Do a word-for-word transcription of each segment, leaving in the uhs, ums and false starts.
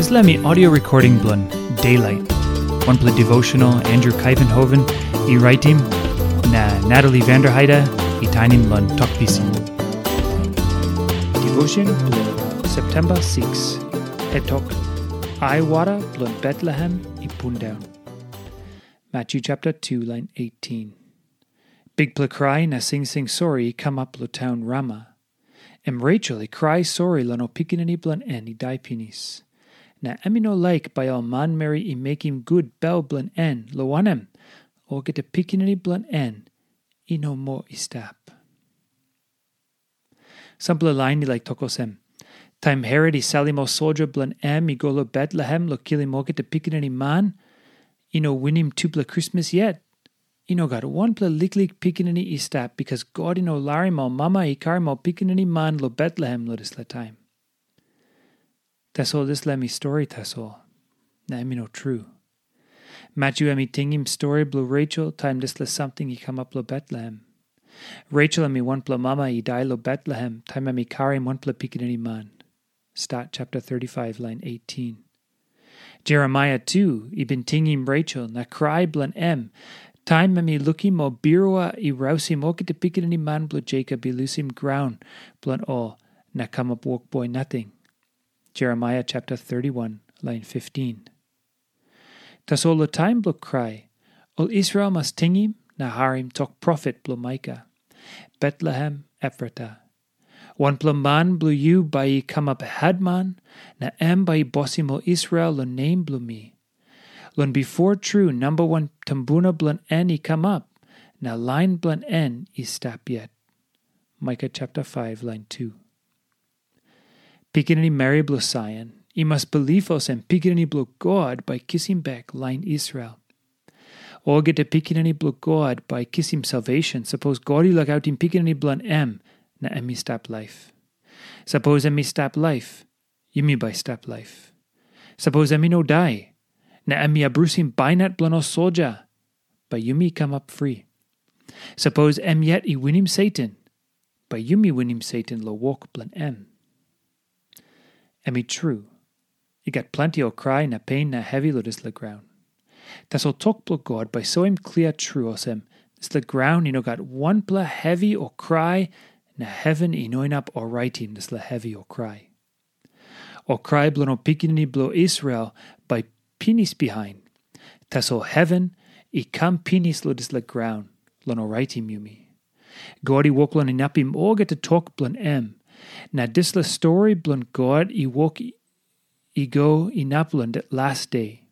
Dispela mi audio recording bilong Daylight. Wanpela devotional Andrew Kaivenhoven i raitim, na Natalie Vanderheide i tainim long Tok Pisin. Devotion bilong September six. Hetok, aiwara bilong Betlehem i pundaun. Matthew chapter two, line eighteen. Bikpela krai na singsing sori i kamap long taun Rama. Em Rachel i krai sori long ol pikinini bilong en i dai pinis. Na em i no laik bai ol manmeri i mekim gut bel bilong en, long wanem, olgeta pikinini bilong en i no moa i stap. Sampela lain i laik tok olsem, taim Herot i salim ol soldia bilong em i go long Betlehem long kilim olgeta pikinini man, i no winim tupela Krismas yet. I no gat wanpela liklik pikinini i stap, bikas God i no larim ol mama i karim ol pikinini man long Betlehem long dispela taim. Tasol dispela em i stori tasol, na em i no tru. Matthew em i tingim stori bilong Rachel taim dispela samting i kamap long Betlehem. Rachel em i wanpela mama i dai long Betlehem taim em i karim wanpela pikinini man. Stat chapter thirty-five, line eighteen. Jeremaia tu i bin tingim Rachel na krai bilong em, taim em i lukim ol birua i rausim olgeta pikinini man bilong Jakob i lusim graun bilong ol na kamap wokboi nating. Jeremaia chapter thirty-one, line fifteen. Tasol long taim bilong krai, ol Israel mas tingim na harim tok profet bilong Maika, Betlehem Efrata. Wanpela man bilong yu bai i kamap hetman, na em bai i bosim ol Israel long nem bilong mi. Long bipo tru namba wan tumbuna bilong en i kamap, na lain bilong en i stap yet. Maika chapter five, line two. Pikinini meri bilong Saion, i mas bilip olsem pikinini bilong God bai kisim bek lain Israel. Olgeta pikinini bilong God bai kisim salvation, sapos God i lukautim pikinini bilong em, na em i stap laip. Sapos em i stap laip, yumi bai stap laip. Sapos em i no dai, na em i abrusim bainat bilong ol soldia, bai yumi kamap fri. Sapos em yet i winim Satan, bai yumi winim Satan long wok bilong em. Em i tru, i gat planti ol krai na pen na hevi long dispela graun. Tasol tok bilong God bai soim klia tru olsem, dispela graun i no gat wanpela hevi o krai, na heven i no inap oraitim dispela hevi o krai. Ol krai bilong ol pikinini bilong Israel bai pinis bihain. Tasol heven i kam pinis long dispela graun long oraitim yumi. God i wok long inapim olgeta tok bilong em. Na dispela stori bilong God i wok i go inap long las de.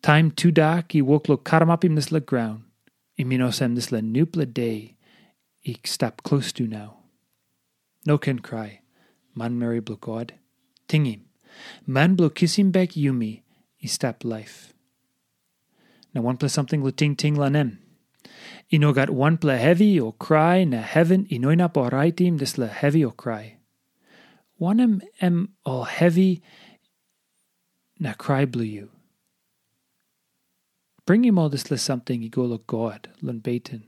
Taim tudak i wok long karamapim dispela graun, i min olsem dispela nupela de i stap klostu nau. No ken krai, manmeri bilong God. Tingim, man bilong kisim bek yumi i stap laip. Na wanpela samting long tingting long em. I no gat wanpela hevi o krai na heven i no inap oraitim dispela hevi o krai. Wanem em ol hevi na krai bilong yu? Bringim ol dispela samting i go long God long beten.